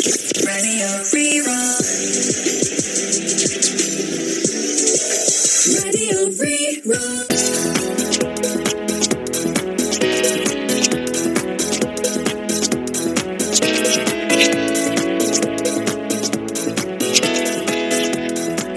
Raidió Rí-Rá. Raidió Rí-Rá.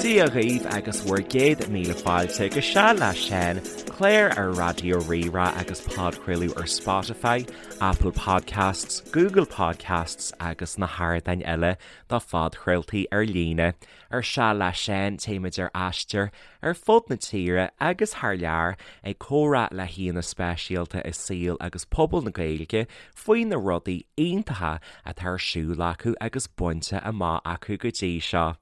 Dia dhaoibh agus bhur gcéad míle fáilte go Seal le Seán, clár ar Raidió Rí-Rá agus podchraoladh ar Spotify, Apple Podcasts, Google Podcasts agus na hardáin eile do phodchraoltaí ar líne. Ar Seal le Seán téimid ar aistear ar fud na tíre agus thar lear ag comhrá le haíonna speisialta i saol agus pobal na Gaeilge faoi na rudaí iontacha atá ar siúl acu agus bainte amach acu go dtí seo.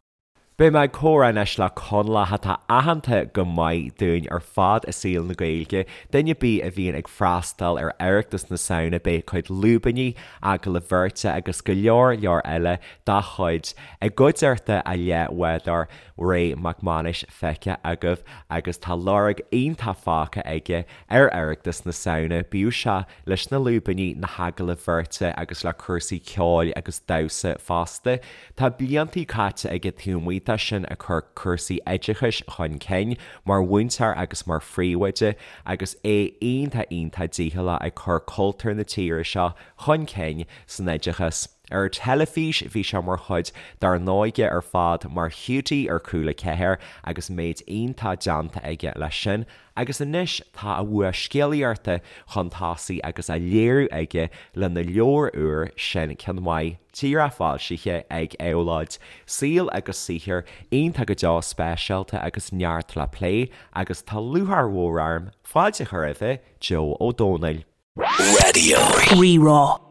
Beidh mé ag comhrá anois le Conallach atá aitheanta go maith dúinn ar fad i saol na Gaeilge. Duine ar bith a bhíonn ag freastal ar Oireachtas na Samhna beidh a chuid lúibíní, agallaimh bheirte agus go leor leor eile dá chuid i gcuideachta a leathbhádóir Ray Mac Mánais feicthe agaibh agus tá lorg iontach fágtha aige ar Oireachtas na Samhna, bíodh sé leis na lúibíní, na hagallaimh bheirte agus le cúrsaí ceoil agus damhsa fosta. Tá bliantaí caite aige taobh amuigh de sin ag cur cúrsaí oideachais chun cinn, mar mhúinteoir agus mar phríomhoide, agus é iontach iontach dícheallach ag cur cultúr na tíre seo chun cinn san oideachas. Ar an teilifís bhí sé mar chuid dár n-óige ar fad mar Hiúdaí ar Cúla 4 agus méid iontach déanta aige leis sin Agus anois tá a bhua scéalaíochta chun tosaigh agus á léiriú aige lena leabhar úr, Sin Ceann Maith, díreach foilsithe ag Éabhlóid. Saol agus saothar iontach go deo speisialta agus neart le plé agus tá lúcháir mhór orm fáilte a chur roimhe, Joe Ó Dónaill. Raidió Rí-Rá.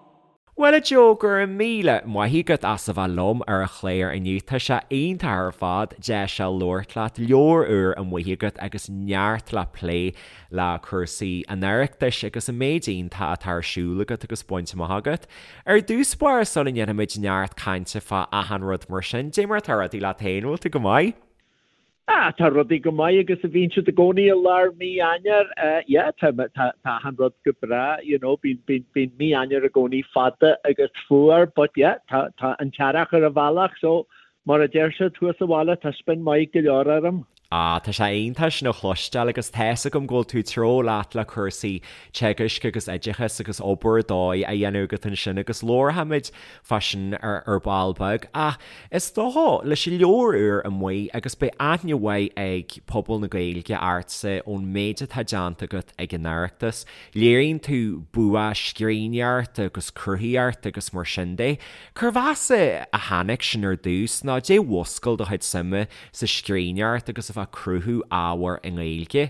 Bhuel a Joe, go raibh míle maith agat as a bheith liom ar an chlár inniu. Tá sé iontach ar fad deis a labhairt leat, leabhar úr amuigh agat agus neart le plé le cúrsaí an Oireachtais agus an méid iontach atá ar siúl agat agus bainte amach agat. Ar dtús báire sula ndéanfaimid neart cainte fá achan rud mar sin, dé mar atá rudaí leat féin, bhfuil tú go maith? Ah, tá rudaí go maith agus a bhíonn siad i gcónaí i lár mí Eanáir. Yeah, tá, tá, tá achan rud go breá, you know, bíonn, bíonn, bíonn mí Eanáir i gcónaí fada agus fuar, but yeah, tá, tá an t-earrach ar an bhealach, so mar a deir siad thuas sa bhaile, tá spion maith go leor orm. Ah, tá sé iontach sin a chloisteáil agus tá's agam go bhfuil tú treo leat le cúrsaí teagaisc agus oideachais agus obair ar dóigh á dhéanamh agat ansin agus labharfaimid fá sin ar ball beag. Ach is dócha, leis an leabhar úr amuigh, agus beidh aithne mhaith ag pobal na Gaeilge ortsa ón méid atá déanta agat ag an Oireachtas, léiríonn tú bua scríbhneoireachta agus cruthaíochta agus mar sin de. Cérbh as a tháinig sin ar dtús, nó dé mhúscail do chuid suime sa scríbhneoireacht agus a bheith ag cruthú ábhair i nGaeilge?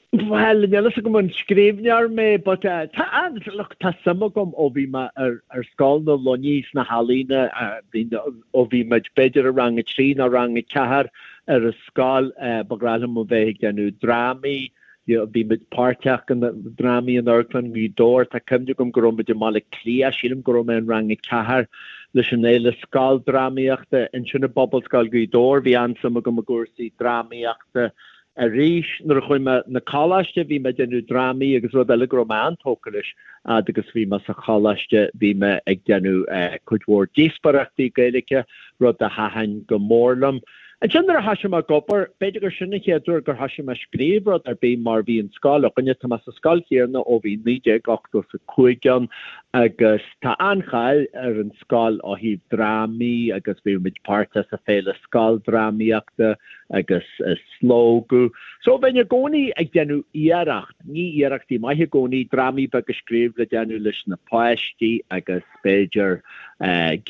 Bhuel, níl a fhios agam an scríbhneoir mé but tá an, look, tá suim agam ó bhí mé ar, ar Scoil na Luiní sna healaíona, bhí, ó bhí muid b'fhéidir i rang a trí nó rang a ceathair ar an scoil, ba ghnách liom a bheith ag déanamh drámaí, you know, bhí muid páirteach in drámaí in Amharclann Ghaoth Dobhair, tá cuimhne agam go raibh muid i mBaile Átha Cliath, sílim go raibh mé in rang a ceathair leis an Fhéile Scoildrámaíochta ansin i bPobalscoil Ghaoth Dobhair, bhí an-suim agam i gcúrsaí drámaíochta. Arís, nuair a chuaigh mé 'na coláiste, bhí mé ag déanamh drámaí agus rud eile go raibh mé an-tógtha leis, fhad agus bhí mé sa choláiste, bhí mé ag déanamh cuid mhór díospóireachtaí Gaeilge, rud a thaitin go mór liom. Ansin nuair a thoisigh mé ag obair, b'fhéidir gur sin an chéad uair gur thoisigh mé ag scríobh rud ar bith mar bhí an scoil againne, tá mé sa scoil chéanna ó bhí 1985 ann agus tá an-cháil ar an scoil ó thaobh drámaí agus bhí muid páirteach sa Féile Scoildrámaíochta, agus Slógadh. So bheinn i gcónaí ag déanamh iarracht, ní iarrachtaí maithe i gcónaí, drámaí beaga a scríobh le déanamh leis na páistí agus b'fhéidir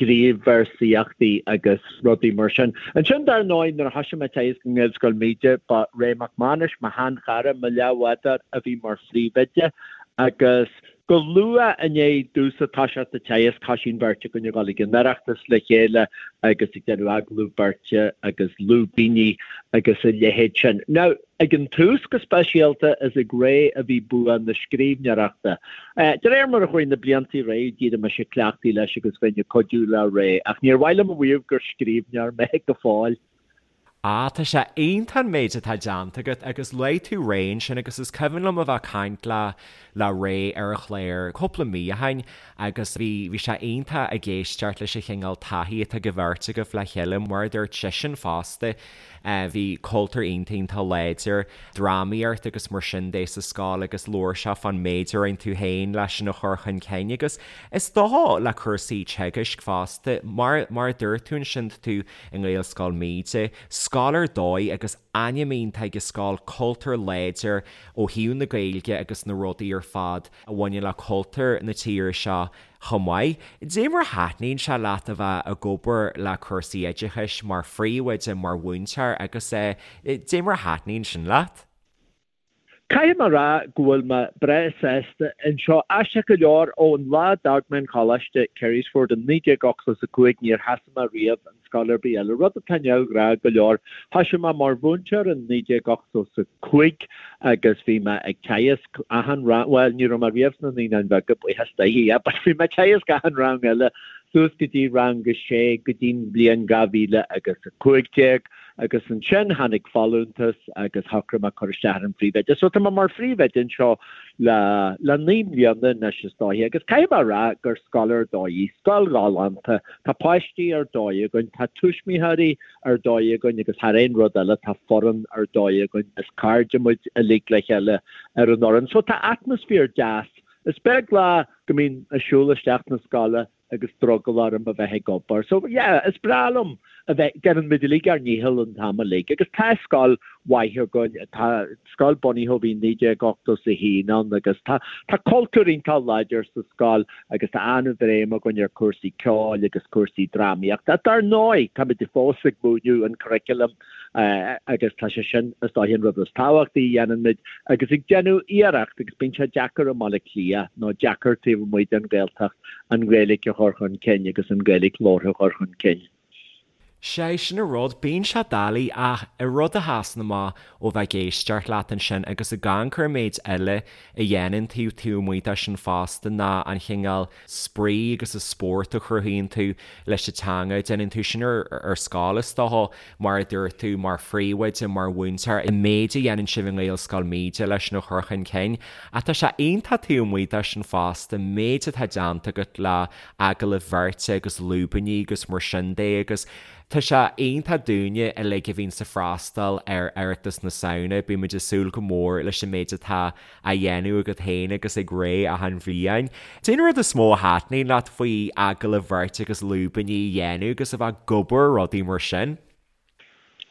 gníomhvéarsaíochtaí agus rudaí mar sin. Ansin dar ndóigh nuair a thoisigh mé ag teagasc i nGaelscoil Míde ba Ray Mac Mánais, mo sheanchara, mo leathbhádóir a bhí mar phríomhoide agus Go luath i ndiaidh domhsa toiseacht ag teagasc, thoisigh an bheirt againn ag dul ag an Oireachtas le chéile agus ag déanamh agallamh beirte agus lúibíní agus a leithéid sin. Now, ag an tús go speisialta, is ag Ray a bhí bua na scríbhneoireachta. De réir mar a chuaigh na blianta ar aghaidh, d'éirigh mise cleachtaithe leis agus bheinn ag cuidiú le Ray, ach níor mhaith liom a mhaíomh gur scríbhneoir mé go fóill. Ah, tá sé iontach an méid atá déanta agat agus luaigh tú Ray ansin agus is cuimhin liom a bheith ag caint le le Ray ar an chlár cúpla mí ó shin agus bhí bhí sé iontach ag éisteacht leis an chineál taithí atá ag an bheirt agaibh le chéile mar a dúirt seisean fosta bhí cultúr iontach iontach láidir drámaíocht agus mar sin de sa scoil agus labhair sé fán méid a rinne tú féin leis sin a chur chun cinn agus is dócha le cúrsaí teagaisc fosta mar mar a dúirt tú ansin tá tú i nGaelscoil Míde, scoil ar dóigh agus ainm iontach ag an scoil, cultúr láidir ó thaobh na Gaeilge agus na rudaí ar fad a bhaineann le cultúr na tíre seo chomh maith. Dé mar a thaitníonn sé leat a bheith ag obair le cúrsaí oideachais mar phríomhoide, mar mhúinteoir agus dé mar a thaitníonn sin leat? Caithfidh mé a rá go bhfuil mé breá sásta anseo. Aisteach go leor, ón lá a d'fhág mé an choláiste, Carysford, in 1985 níor sheasaigh mé riamh in scoil ar bith eile, rud atá neamhghnách go leor. Thoisigh mé mar mhúinteoir in 1985 agus bhí mé ag teagasc achan rang, bhuel, ní raibh mé riamh sna Naíonáin Bheaga, buíochas Dé, yeah, but bhí mé ag teagasc achan rang eile suas go dtí rang a sé go dtí'n bhliain 2015. Agus ansin tháinig folúntas agus shocraigh mé cur isteach ar an phríomhoide. So tá mé mar phríomhoide anseo le le 9 mbliana anois is dóiche agus caithfidh mé a rá gur scoil ar dóigh í, scoil ghalánta, tá páistí ar dóigh againn, tá tuismitheoirí ar dóigh againn agus thar aon rud eile tá foireann ar dóigh againn, is cairde muid uilig le chéile ar an fhoireann. So tá atmaisféar deas. Is beag lá go mbím ag siúl isteach na scoile agus drogall orm a bheith ag obair. So yeah, is breá liom a bheith, déanann muid uilig ár ndícheall an t-am uilig agus tá scoil mhaith againn, tá scoil bunaithe ó bhí 1981 ann agus tá tá cultúr iontach láidir sa scoil agus tá an-bhréim againn ar cúrsaí ceoil agus cúrsaí drámaíochta. Dar ndóigh, táimid fós ag múineadh an curriculum agus tá sé sin is dóiche an rud is tábhachtaí a dhéanann muid agus ag déanamh iarracht agus bíonn sé deacair i mBaile Átha Cliath nó deacair taobh amuigh den Ghaeltacht an Ghaeilge a chur chun cinn agus an Ghaeilge labhartha a chur chun cinn. Sé sin an rud, bíonn sé doiligh ach an rud a sheasann amach ó bheith ag éisteacht leat ansin agus ag amharc ar an méid eile a dhéanann tú taobh amuigh de sin fosta ná an chineál spraoi agus an spórt a chruthaíonn tú leis an teanga. Déanann tú sin ar scoil is dócha, mar a dúirt tú, mar phríomhoide, mar mhúinteoir, an méid a dhéanann sibh i nGaelscoil Míde leis sin a chur chun cinn. Ach tá sé iontach taobh amuigh de sin fosta, an méid atá déanta agat le agallaimh bheirte agus lúibíní agus mar sin de agus tá sé iontach dúinne uilig a bhíonns ag freastal ar Oireachtas na Samhna, bímid ag súil go mór leis an méid atá á dhéanamh agat féin agus ag Ray achan bhliain. Cén rud is mó a thaitníonn leat faoi agallaimh bheirte agus lúibíní a dhéanamh agus a bheith ag obair ar rudaí mar sin?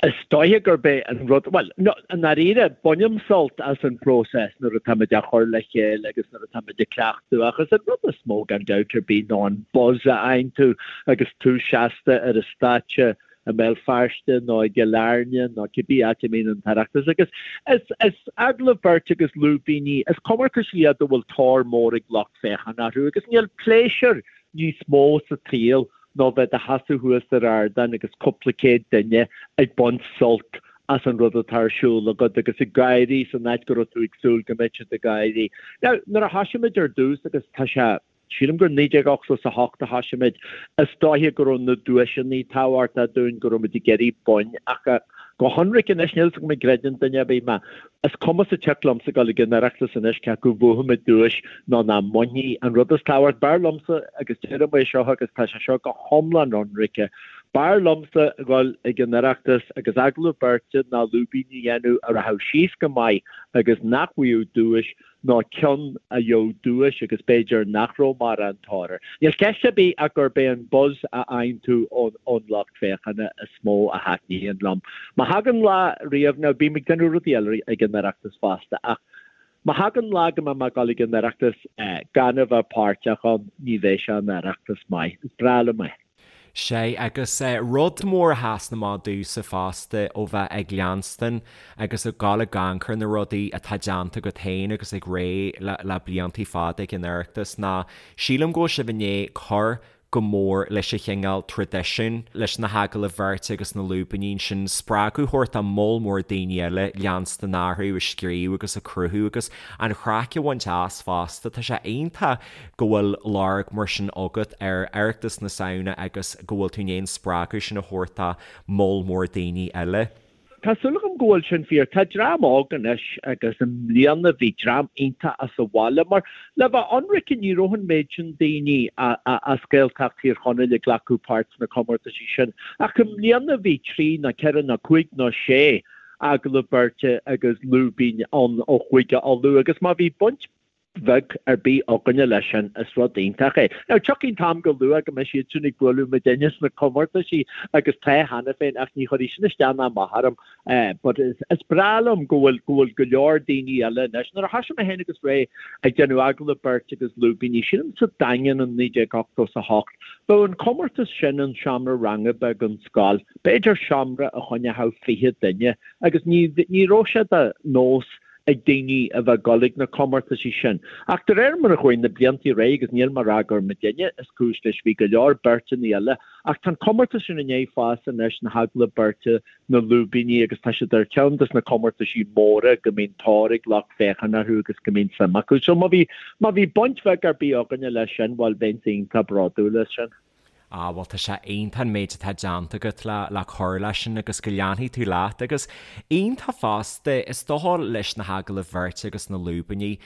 Is dóiche gurb é an rud, bhuel, no, i ndáiríre, bainim sult as an bpróiseas nuair atáimid á chur le chéile agus nuair atáimid ag cleachtadh ach is an rud is mó gan dabht ar bith ná an buzz a fhaigheann tú agus tú seasta ar an stáitse i mBéal Feirste nó i gCill Airne nó cibé áit a mbíonn an tOireachtas agus is is agallamh beirte agus lúibíní, is comórtais iad a bhfuil tóir mór ag lucht féachana orthu agus níl pléisiúr níos mó sa tsaol ná bheith i do sheasamh thuas ar ardán agus cúpla céad duine ag baint sult as an rud atá ar siúl agat agus ag gáirí san áit go raibh tú ag súil go mbeadh siad ag gáirí. Now, nuair a thoisigh muid ar dtús agus tá sé Sílim gur 1988 a thoisigh muid. Is dóiche go raibh na duaiseanna tábhachtach dúinn, go raibh muid ag iarraidh boinn ach go hionraic anois, níl 'fhios agam an gcreideann duine ar bith mé. Is cuma sa tsioc liomsa dul ag an Oireachtas anois cé acu bhuafaidh muid duais nó nach mbainfidh. An rud is tábhacht, b'fhearr liomsa, agus deirim é seo agus tá sé seo go hiomlán ionraice, b'fhearr liomsa dhul ag an Oireachtas agus agallamh beirte ná lúibín a dhéanamh a rachadh síos go maith agus nach bhfaigheadh duais ná ceann a gheobhadh duais agus b'fhéidir nach raibh mórán tóir air. Níl ceist ar bith ach gurb é an buzz a fhaigheann tú ón lucht féachana is mó a thaitníonn liom. Má thagann lá riamh, now bím ag déanamh rudaí eile ag an Oireachtas fosta, ach má thagann lá go mbeidh mé ag dul ag an Oireachtas gan a bheith páirteach ann, ní bheidh sé ina Oireachtas maith. Is breá liom é. Sea, agus rud mór a sheasann amach domhsa fosta ó bheith ag leanstan agus ag dul ag amharc ar na rudaí atá déanta agat féin agus ag Ray le bliantaí fada ag an Oireachtas ná sílim go bhfuil sibh i ndiaidh cur go mór leis an chineál traidisiún, leis na hagallaimh bheirte agus na lúibíní ansin, spreagadh a thabhairt do moll mór daoine eile leanstan orthu ag scríobh agus ag cruthú agus an chraic a bhaint as fosta. Tá sé iontach go bhfuil lorg mar sin agat ar Oireachtas na Samhna agus go bhfuil tú in ann an spreagadh sin a thabhairt do moll mór daoine eile. Tá súil agam go bhfuil sin fíor. Tá dream óg anois agus i mbliana bhí dream iontach as an bhaile mar le bheith ionraice ní raibh an méid sin daoine as Gaeltacht Thír Chonaill ag glacadh páirt sna comórtaisí sin ach i mbliana bhí trí nó ceithre nó cúig nó sé agallamh beirte agus lúibín ann ó Chúige Uladh agus má bhí baint bheag ar bith againne leis sin, is rud iontach é. Now, tiocfaidh an t-am go luath go mbeidh siad sin ag bualadh muidinne sna comórtaisí agus tá cheana féin ach ní chuirfidh sin isteach ná amach orm. But is, is breá liom go bhfuil, go bhfuil go leor daoine eile anois. Nuair a thoisigh mé féin agus Ray ag déanamh agallamh beirte agus lúibíní, sílim sa Daingean in 1988, bheadh an comórtas sin in seomra ranga beag an scoil, b'fhéidir seomra a choinneodh 20 duine agus ní, ní raibh sé de nós ag daoine a bheith ag dul ag na comórtaisí sin. Ach de réir mar a chuaigh na blianta ar aghaidh, agus níl mé ag rá gur muidinne is cúis leis, bhí go leor beirteanna eile, ach tá an comórtas sin i ndiaidh fás anois, na hagallaimh beirte, na lúibíní, agus tá siad ar cheann des na comórtaisí móra go mbíonn tóir ag lucht féachana orthu agus go mbíonn suim acu. So má bhí, má bhí baint bheag ar bith againne leis sin, bhuel, bheinnse iontach bródúil as sin. Ah bhuel tá sé iontach an méid atá déanta agat le le cur leis sin agus go leanfaidh tú leat agus iontach fosta is dócha leis na hagallaimh bheirte agus na lúibíní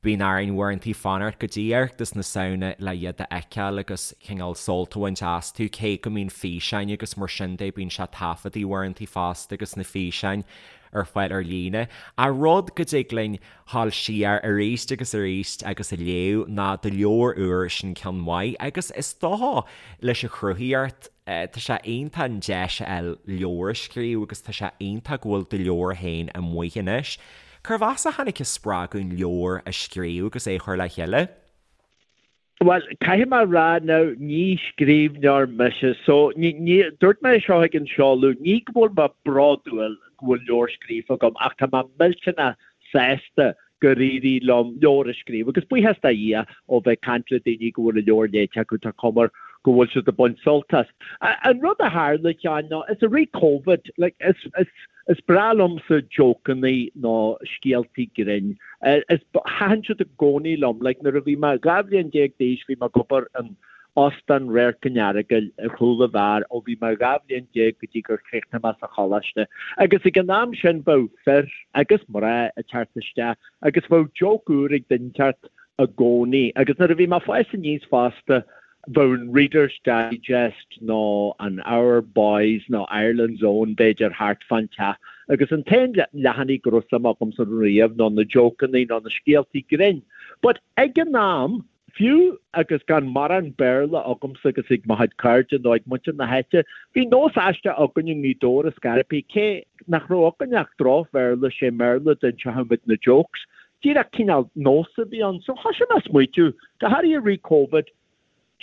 bíonn orainn uaireantaí fanacht go dtí Oireachtas na Samhna le iad a fheiceáil agus cineál sult a bhaint astu cé go mbíonn físeáin agus mar sin de bíonn sé taifeadtaí uaireantaí fosta agus na físeáin ar fáil ar líne. Ach rud go dtig linn dhul siar arís agus arís agus a léamh ná do leabhar úr sin ceann maith agus is dócha leis an chruthaíocht tá sé iontach an deis a fháil leabhar a scríobh agus tá sé iontach go bhfuil do leabhar féin amuigh anois. Cérbh as a tháinig an spreagadh an leabhar a scríobh agus é a chur le chéile? Bhuel, caithfidh mé a rá now, ní scríbhneoir mise, so ní, ní, dúirt mé é seo ag an seoladh, ní go bhfuil mé bródúil go bhfuil leabhar scríofa agam ach tá mé millteanach sásta gur éirigh liom leabhar a scríobh agus buíochas do Dhia ó bheith ag caint le daoine go bhfuil an leabhar léite acu, tá cuma air go bhfuil siad ag baint sult as. An rud a tharla, a Sheáin, ná is i rith Covid, like, is, is, Is breá liomsa jócannaí nó scéaltaí grinn. Is, thaitin siad i gcónaí liom. Like, nuair a bhí mé 12 bhliain d'aois bhí mé ag obair in Óstán Radharc an Earagail ar chúl an bheáir ó bhí mé 12 bhliain go dtí gur chríochnaigh mé sa choláiste. Agus ag an am sin bheadh fir agus mná ag teacht isteach agus bheadh joke úr ag duine inteacht i gcónaí. Agus nuair a bhí mé ag fás aníos fosta, Bheadh an Reader's Digest nó an Our Boys nó Ireland's Own b'fhéidir thart fán teach agus an t-aon leathanaigh go raibh suim agamsa riamh ná na jócannaí nó na scéaltaí grinn. But ag an am, fiú agus gan mórán Béarla agamsa agus ag mo chuid cairde nó ag muintir na háite, bhí nós aisteach againn i nGaoth Dobhair i Scairpí, cé nach raibh againn ach droch-Bhéarla, sé mBéarla a d'inseochadh muid na jokes. Díreach cineál nós a bhí ann. So thoisigh mé ag smaoitiú, go háirithe i rith Covid,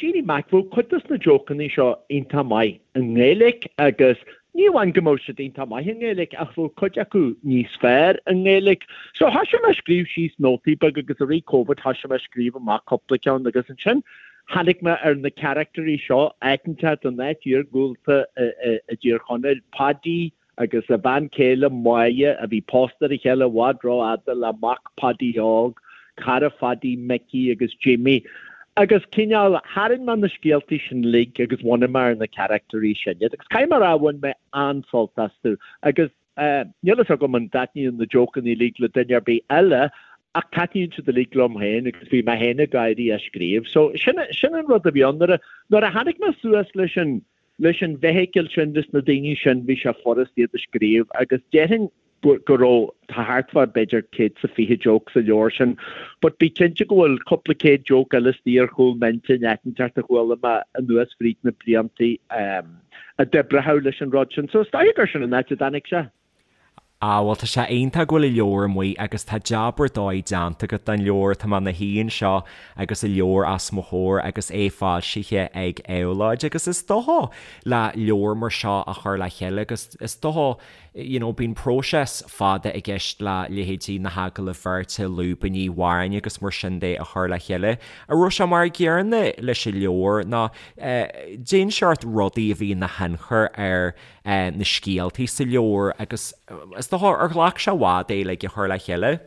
Jeannie Mac, bheadh cuid dos na jócannaí seo iontach maith i nGaeilge agus ní amháin go mbeadh siad iontach maith i nGaeilge ach bheadh cuid acu níos fearr i nGaeilge. So thoisigh mé ag scríobh síos nótaí beaga agus i rith Covid thoisigh mé ag scríobh amach cúpla ceann agus ansin tháinig mé ar na caractairí seo, áit inteacht in áit iargúlta i dTír Chonaill, Paidí, agus a bhean chéile Máire, a bhí pósta ar a chéile i bhfad rófhada le mac Phaidí Óg, cara Phaidí, Micí agus Jimí. Agus cineál, tharraing mé na scéaltaí sin uilig agus bhunaigh mé ar na caractairí sin iad. Agus caithfidh mé a rá, bhain mé an-sult astu. Agus níl fhios agam an dtaitníonn na jócannaí uilig le duine ar bith eile, ach taitníonn siad uilig liom féin agus bhí mé féin ag gáirí á scríobh. So sin, sin an rud a bhí ann. Nuair a, nuair a tháinig mé suas leis an, Leis an bhfeithicil sin, leis na daoine sin, bhí sé furast iad a scríobh agus déarfainn go raibh, tá thart fá b'fhéidir 120 joke sa leabhar sin, but bí cinnte go bhfuil cúpla céad joke eile istigh ar chúl m'intinn áit inteacht a chuala mé anuas fríd na bliantaí a d'oibreodh leis an rud sin. So is dóigh gur sin an áit a dtáinig sé. Ah bhuel tá sé iontach go bhfuil an leabhar amuigh agus tá jab ar dóigh déanta agat don leabhar, tá mé ina shuí anseo agus an leabhar os mo chomhair agus é foilsithe ag Éabhlóid agus is dócha le leabhar mar seo a chur le chéile agus is dócha you know bíonn próiseas fada i gceist le leithéidí na hagallaimh bheirte, lúibíní, amhráin agus mar sin de a chur le chéile. An raibh sé mar an gcéanna leis an leabhar nó eh cén seort rudaí a bhí ina thionchar ar na scéaltaí sa leabhar agus is dócha ar ghlac sé i bhfad é like a chur le chéile?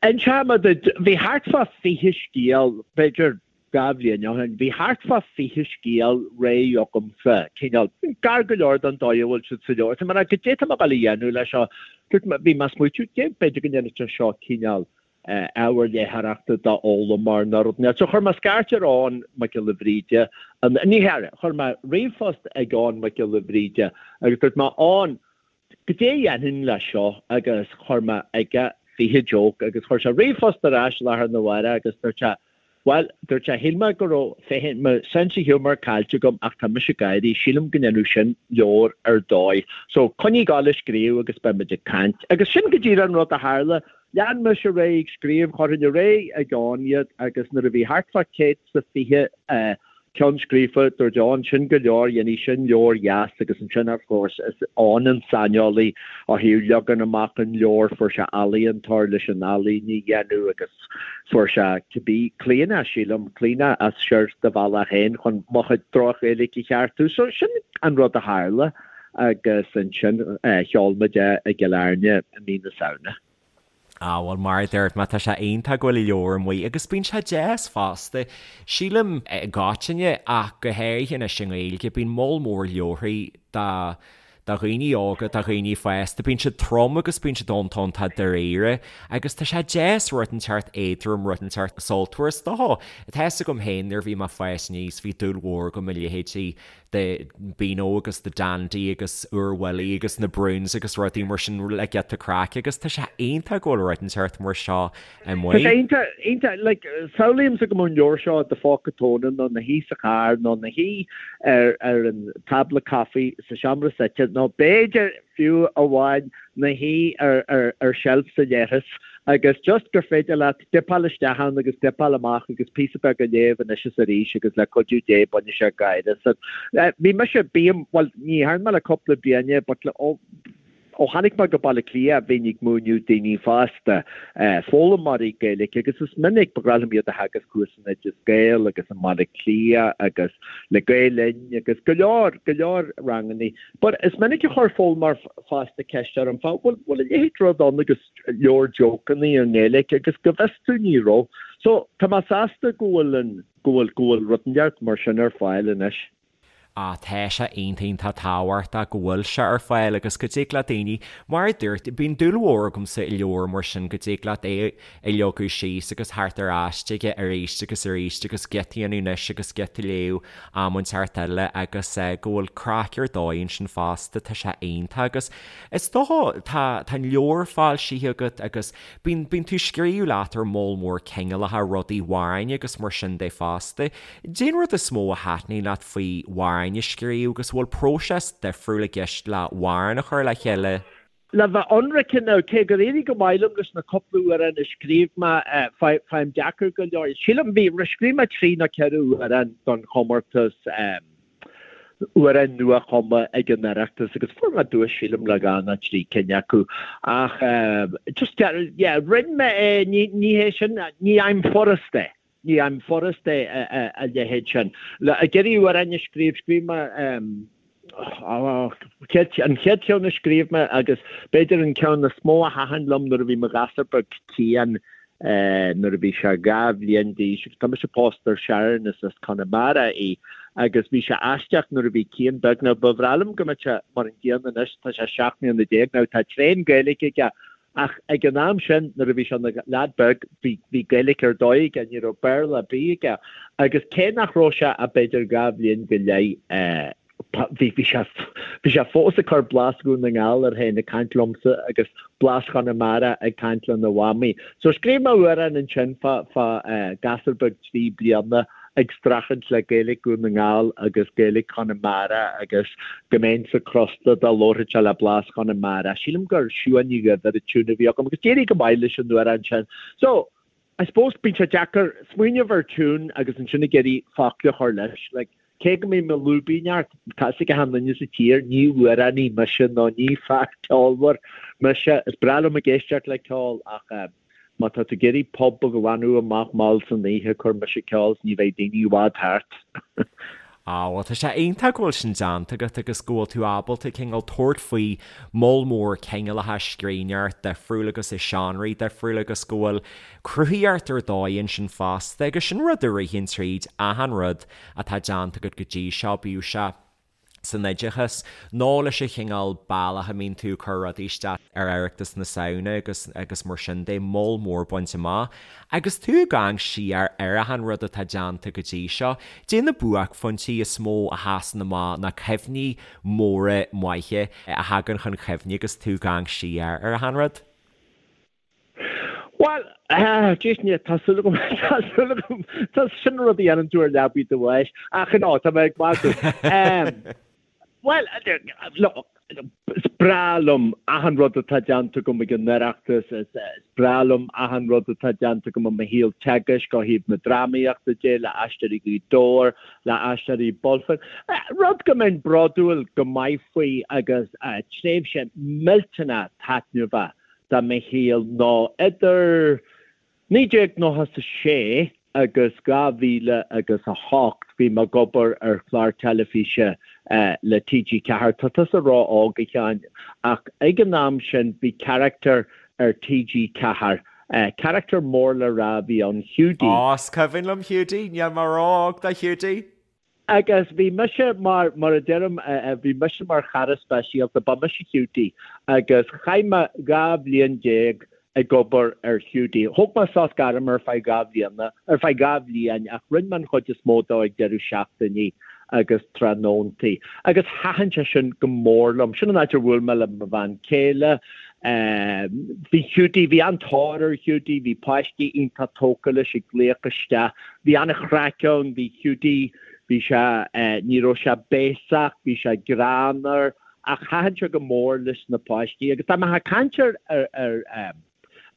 Inseoidh mé duit, bhí thart fá 20 scéal, b'fhéidir 2 bhliain ó shin, bhí thart fá 20 scéal réidh agamsa, cineál, gar go leor don dóigh a bhfuil siad sa leabhar. Tá mé ag rá, goidé tá mé ag dul a dhéanamh leis seo? Dúirt mé, bhí mé ag smaoitiú, b'fhéidir go ndéanfadh sé seo cineál ábhar léitheoireachta d'fhoghlaimeoir nó rud inteacht. So chuir mé scairt ar Eoghan Mac Giolla Bhríde, ní hea, chuir mé ríomhphost ag Eoghan Mac Giolla Bhríde agus dúirt mé, Eoghan, goidé a dhéanfainn leis seo agus chuir mé aige 20 joke agus chuir sé ríomhphost ar ais lá arna mhárach agus dúirt sé, Bhuel, dúirt sé, shíl mé go raibh féin mo sense of humour caillte agam ach tá mise ag gáirí, sílim go ndéanfadh sin leabhar ar dóigh. So, coinnigh ag gabháil ag scríobh agus beidh muid ag caint. Agus sin go díreach an rud a tharla. Lean mise ar aghaidh ag scríobh, chuirfinn ar aghaidh ag Eoghan iad agus nuair a bhí thart fá 120 ceann scríofa, dúirt Eoghan, sin go leor, dhéanfaidh sin leabhar dheas agus ansin of course is Eoghan an saineolaí ó thaobh leagan amach an leabhair, fuair sé ealaíontóir leis an ealaín a dhéanamh agus fuair sé cibé, Clíona sílim, Clíona as siar do bhealach féin chun mo chuid droch-Ghaeilge a cheartú. So sin an rud a tharla agus ansin sheol muid é i gCill Airne i mí na Samhna. Ah bhuel mar a dúirt mé tá sé iontach go bhfuil an leabhar amuigh agus bíonn sé deas fosta. Sílim i gcoitinne ach go háirithe anois i nGaeilge bíonn moll mór leabharthaí do do dhaoine óga, do dhaoine fásta, bíonn siad trom agus bíonn siad iontach iontach dáiríre agus tá sé deas rud inteacht éadrom rud inteacht sultmhar is dócha. Tá fhios agam féin nuair a bhí mé ag fás aníos bhí dúil mhór agam i leithéidí de Beano agus The Dandy agus Oor Wullie agus na Broons agus rudaí mar sin le giota craic agus tá sé iontach go bhfuil rud inteacht mar seo amuigh. Tá sé iontach, iontach, like, samhlaímse go mbeadh an leabhar seo i do phóca tóna nó ina shuí sa charr nó ina shuí ar ar an tábla caife sa seomra suite nó b'fhéidir fiú amháin ina shuí ar ar ar seilf sa leithreas agus just gur féidir leat dipeáil isteach ann agus dipeáil amach agus píosa beag a léamh anois is arís agus le cuidiú Dé bainfidh sé gáire asat. Bhí mise, bím, bhuel ní dhearna mé le cúpla bliain é but le, ó, ó tháinig mé go Baile Átha Cliath bhínn ag múineadh daoine fásta, foghlaimeoirí Gaeilge agus is minic, ba ghnách liom iad a theagasc thuas in Oideas Gael agus i mBaile Átha Cliath agus le Gael Linn agus go leor, go leor rangannaí. But is minic a chuir foghlaimeoir fásta ceist orm fá, bhfuil, bhfuil a leithéid rud ann agus leabhar jócannaí i nGaeilge agus go bhfios domh ní raibh. So tá mé sásta go bhfuil an, go bhfuil, go bhfuil rud inteacht mar sin ar fáil anois. Ah tá sé iontach iontach tábhachtach go bhfuil sé ar fáil agus go dtig le daoine, mar a dúirt, bíonn dúil mhór agamsa i leabhar mar sin, go dtig leat é a leagadh síos agus theacht ar ais chuige arís agus arís agus giota a dhéanamh anois agus giota a léamh am inteacht eile agus go bhfuil craic ar dóigh ansin fosta, tá sé iontach agus Is dócha, tá, tá an leabhar foilsithe agat agus bíonn, bíonn tú ag scríobh leat ar moll mór cineálacha rudaí, amhráin agus mar sin de fosta. Cén rud is mó a thaitníonn leat faoi amhráin a scríobh agus an bhfuil próiseas difriúil i gceist le amhrán a chur le chéile? Le bheith ionraic now, cé gur éirigh go maith liom leis na cúpla amhrán a scríobh mé, faighim deacair go leor. Sílim, bhí, scríobh mé trí nó ceithre amhrán don chomórtas, amhrán nua-chumtha ag an Oireachtas agus fuair mé duais sílim le dhá nó trí cinn acu ach just yeah rinne mé é ní ní hé sin ní fhaighim furast é ní fhaighim furast é a leithéid sin. Le ag iarraidh amhrán a scríobh scríobh mé an chéad cheann a scríobh mé agus b'fhéidir an ceann is mó a thaitin liom nuair a bhí mo ghasúr beag Cian nuair a bhí sé 2 bhliain d'aois agus tá mise pósta ar Sharon is as Conamara í agus bhí sé aisteach nuair a bhí Cian beag now ba bhreá liom go mbeadh sé mar an gcéanna anois tá sé 17 mbliana now tá tréan Gaeilge aige ach ag an am sin nuair a bhí sé ina leaid beag bhí bhí Gaeilge ar dóigh aige ní raibh Béarla ar bith aige agus cé nach raibh sé ach b'fhéidir 2 bhliain go leith Bhí bhí sé bhí sé fós ag cur blas Dhún na nGall air féin ag caint liomsa agus blas Chonamara ag caint lena mhamaí. So scríobh mé amhrán ansin fá fá gasúr beag 3 bliana. ag streachailt le Gaeilge Dhún na nGall agus Gaeilge Chonamara agus go mbeinnse crosta dá labharfadh sé le blas Chonamara. Sílim gur Siuán Ní Dhuibhir an tiún a bhí agam agus d'éirigh go maith leis an amhrán sin. So, I suppose bíonn sé deacair smaoineamh ar tiún agus ansin ag iarraidh focla a chur leis. Like, cé go mbím ag lúibíneacht, tá fhios ag achan duine sa tír, ní amhránaí mise nó ní fear ceolmhar mise. Is breá liom ag éisteacht le ceol ach eh, má tá tú ag iarraidh pub a ghlanadh amach mall san oíche, cuir mise ceol 's ní bheidh daoine i bhfad thart. Á, bhuel, tá sé iontach go bhfuil sin déanta agat agus go bhfuil tú ábalta cineál tabhairt faoi moll mór cineálacha scríbhneoireacht difriúil agus i seánraí difriúla agus go bhfuil cruthaíocht ar dóigh ansin fosta agus sin rud a ritheann tríd achan rud atá déanta agat go dtí seo, bíodh sé san oideachas nó leis an chineál bealach a mbíonn tú ag cur rudaí isteach ar Oireachtas na Samhna agus agus mar sin de, moll mór bainte amach. Agus tú ag amharc siar ar achan rud atá déanta go dtí seo, caidé na buaicphointí is mó a sheasann amach na cuimhní móra maithe a thagann chun cuimhne agus tú ag amharc siar ar achan rud? Bhuel, jeez, ní, tá súil agam, tá súil agam, tá sin rud a dhéanann tú ar leabaidh do bháis, ach no, tá mé ag magadh. Bhuel, look, is breá liom achan rud atá déanta agam ag an Oireachtas, is breá liom achan rud atá déanta agam i mo shaol teagaisc ó thaobh na drámaíochta de, le Aisteoirí Ghaoth Dobhair, le Aisteoirí Bulfin. Rud go mbeinn bródúil go maith faoi agus tréimhse millteanach taitneamhach de mo shaol ná idir 1996 agus 2000 agus 8 bhí mé ag obair ar chlár teilifíse le TG4. Tá tusa ró-óg, a Sheáin, ach ag an am sin bhí carachtar ar TG4, carachtar mór le rá a bhí ann, Hiúdaí. Á, is cuimhin liom Hiúdaí, níl mé ró-óg do Hiúdaí! Agus bhí mise mar, mar a deirim, bhí mise mar chara speisialta, ba mise Hiúdaí agus chaith mé 12 bhliain ag obair ar Hiúdaí. Thóg mé sos gairme ar feadh 2 bhliana, ar feadh 2 bhliain ach rinne mé an chuid is mó dó ag deireadh seachtainí agus tráthnóntaí. Agus thaitin sé sin go mór liom. Sin an áit ar bhuail mé le mo bhean chéile. Bhí Hiúdaí, bhí an-tóir ar Hiúdaí, bhí páistí iontach tógtha leis ag glaoch isteach. Bhí an-chraic ann, bhí Hiúdaí, bhí sé, ní raibh sé béasach, bhí sé greannmhar, ach thaitin sé go mór leis na páistí. Agus dá mbeifeá ag caint ar, ar, ar,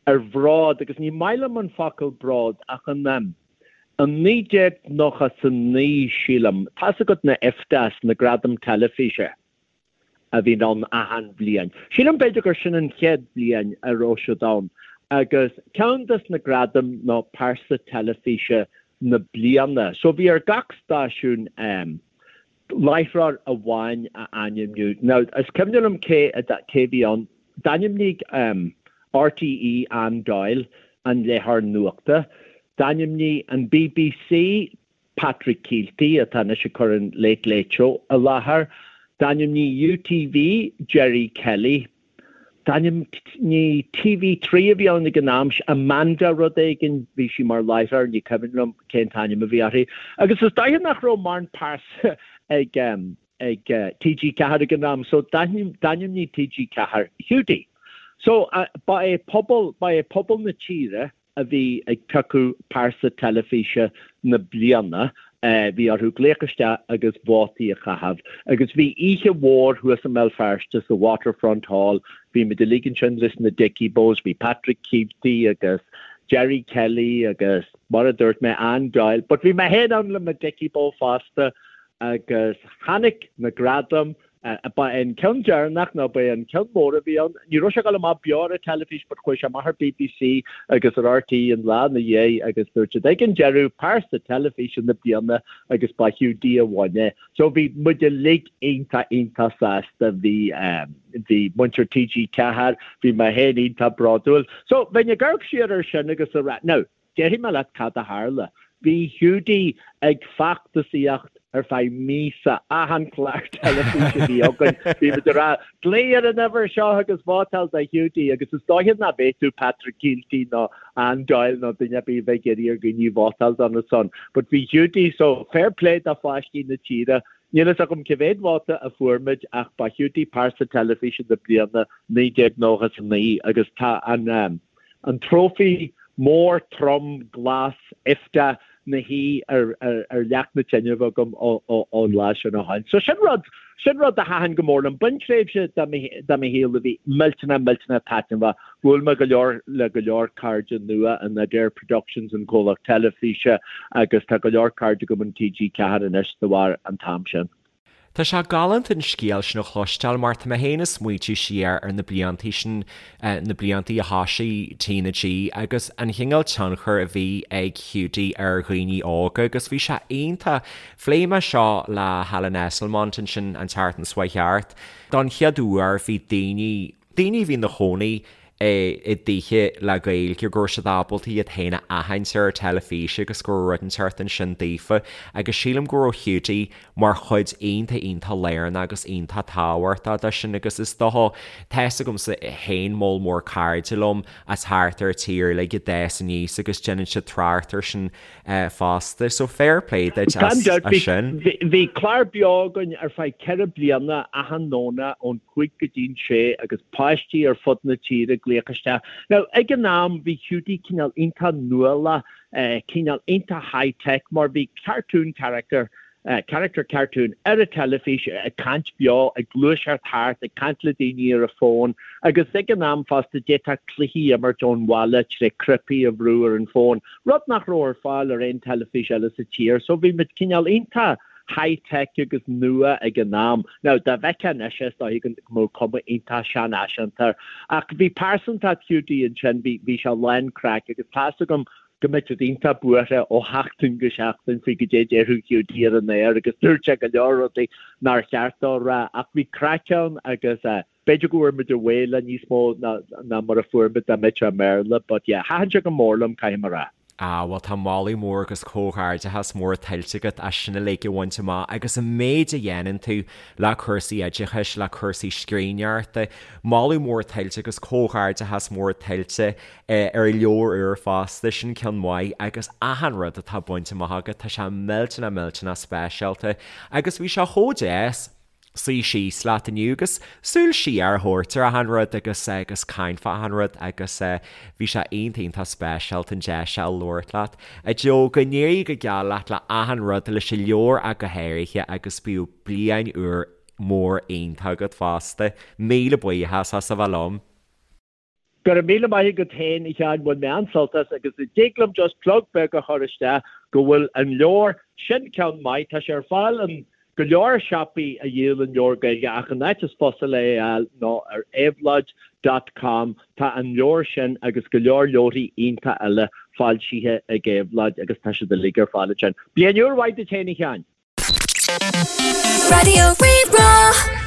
ar bhród, agus ní maith liom an focal bród, ach in, in 1999, sílim, tá's agat na IFTAs, na Gradaim Teilifíse. a bhíonn ann achan bhliain. Sílim b'fhéidir gur sin an chéad bhliain a raibh siad ann agus ceann des na gradaim ná pearsa teilifíse na bliana. So bhí ar gach stáisiún láithreoir amháin a ainmniú. Now is cuimhin liom cé cé bhí ann. D'ainmnigh RTÉ Anne Doyle an léitheoir nuachta. D'ainmnigh an BBC Patrick Kielty, atá anois ag cur an Late Late Show i láthair. D'ainmnigh UTV Gerry Kelly. D'ainmnigh TV3 a bhí ann ag an am, Amanda rud éigin, bhí sí mar láithreoir, ní cuimhin liom cén t-ainm a bhí uirthi. Agus is dóiche nach raibh mórán pearsa ag ag TG4 ag an am, so d'ainmnigh TG4 Hiúdaí. So ba é pobal, ba é pobal na tíre a bhí ag piocadh pearsa teilifíse na bliana, bhí orthu glaoch isteach agus vótaí a chaitheamh. Agus bhí oíche mhór thuas i mBéal Feirste sa Waterfront Hall, bhí muid uilig ansin leis na Dickie Bows, bhí Patrick Kielty agus Gerry Kelly agus mar a dúirt mé, Anne Doyle, but bhí mé féin ann le mo Dickie Bow fosta agus tháinig na gradaim Ba é an ceann deireanach nó ba é an ceann mór a bhí ann. Ní raibh sé ag dul amach beo ar an teilifís but chuaigh sé amach ar BBC agus ar RTÉ an lá ina dhiaidh agus dúirt siad ag an deireadh pearsa teilifíse na bliana agus ba Hiúdaí a bhain é. So bhí muid uilig iontach iontach sásta. Bhí bhí muintir TG4, bhí mé féin iontach bródúil. So bheinn ag amharc siar ar sin agus a rá, now, Déarfaidh mé leat cad a tharla. Bhí Hiúdaí ag feachtasaíocht ar feadh míosa, achan chlár teilifíse a bhí againn, bhí muid ag rá, 'Glaoigh ar an uimhir seo agus vótáil do Hiúdaí' agus is dóiche nach bhféadfadh Patrick Kielty nó Anne Doyle nó duine ar bith a bheith ag iarraidh ar dhaoine vótáil dona son. But bhí Hiúdaí, so fair play do pháistí na tíre. Níl fhios agam cé mhéad vóta a fuair muid ach ba Hiúdaí pearsa teilifíse na bliana 1999 agus tá an, An trófaí mór trom glas IFTA. 'na shuí ar ar leac na tine agam ón lá sin ó shin. So sin rud, sin rud a thaitin go mór liom. B'in tréimhse de mo shaol a bhí millteanach, millteanach taitneamhach. Bhuail mé go leor le go leor cairde nua in Adare Productions, an comhlacht teilifíse, agus tá go leor cairde agam in TG4 anois de bharr an t-am sin. Tá sé galánta an scéal sin a chloisteáil mar tá mé féin ag smaoitiú siar ar na bliantaí sin, na bliantaí a thosaigh TnaG agus an chineál tionchair a bhí ag Hiúdaí ar dhaoine óga agus bhí sé iontach. Phléigh mé seo le Helen Esslemont ansin an tseachtain seo chuaigh thart. Don chéad uair bhí daoine, daoine a bhí ina chónaí i dtithe le Gaeilge, go raibh siad ábalta iad féin a aithint ar an teilifís agus go raibh rud inteacht ansin daofa agus sílim go raibh Hiúdaí mar chuid iontach iontach lárnach agus iontach tábhachtach de sin agus is dócha, tá fhios agamsa féin moll mór cairde liom as thart ar an tír uilig a d'fhás aníos agus déanann siad trácht air sin fosta. So fair play duit as sin. Bhí clár beo againn ar feadh 4 bliana achan Domhnach ón 5 go dtí'n 6 agus páistí ar fud na tíre ag glaoch isteach. Now ag an am bhí Hiúdaí cineál iontach nuálach, cineál iontach high tech mar bhí cartoon character character cartoon ar an teilifís ag caint beo, ag gluaiseacht thart, ag caint le daoine ar an bhfón agus ag an am fosta d'fhéadfá cluichí a imirt ón bhaile tré cnaipí a bhrú ar an bhfón, rud nach raibh ar fáil ar aon teilifís eile sa tír. So bhí muid cineál iontach high tech agus nua ag an am. Now dá bhfeicfeá anois é is dóichí go mbeadh cuma iontach seanfhaiseanta air. Ach bhí pearsantacht Hiúdaí ansin, bhí bhí sé lán craic agus tá's agam go mbeadh siad iontach buartha ó sheachtain go seachtain faoi goidé a déarfadh Hiúdaí ar an aer agus dúirt sé go leor rudaí nár cheart dó a rá ach bhí craic ann agus b'fhéidir go bhfuair muid away le níos mó ná mar a fuair muid dá mbeadh sé i mBéarla but yeah thaitin sé go mór liom caithfidh mé a rá. Ah bhuel tá moladh mór agus comhghairdeachas mór tuillte agat as sin uilig a bhaint amach agus an méid a dhéanann tú le cúrsaí oideachais, le cúrsaí scríbhneoireachta. Moladh mór tuillte agus comhghairdeachas mór tuillte ar an leabhar úr fosta, sin ceann maith agus achan rud atá bainte amach agat, tá sé millteanach millteanach speisialta agus bhí sé chomh deas suí síos leat inniu agus súil siar a thabhairt ar achan rud agus agus caint fá achan rud agus bhí sé iontach iontach speisialta an deis seo a labhairt leat. A Joe, go n-éirí go geal leat le achan rud, leis an leabhar ach go háirithe agus bíodh bliain úr mór iontach agat fosta. Míle buíochas as a bheith liom. Go raibh míle maith agat féin, a Sheáin, bhain mé an-sult as agus an dtig liom just plug beag a chur isteach go bhfuil an leabhar, sin ceann maith, tá sé ar fáil in go leor siopaí a dhíolann leabhair Gaeilge ach an áit is fusa le é a fháil ná ar éabhlóid dot com, tá an leabhar sin agus go leor leabharthaí iontach eile foilsithe ag Éabhlóid agus tá siad uilig ar fáil ansin. Bliain úr mhaith duit féin, a Sheáin! Raidió Rí-Rá.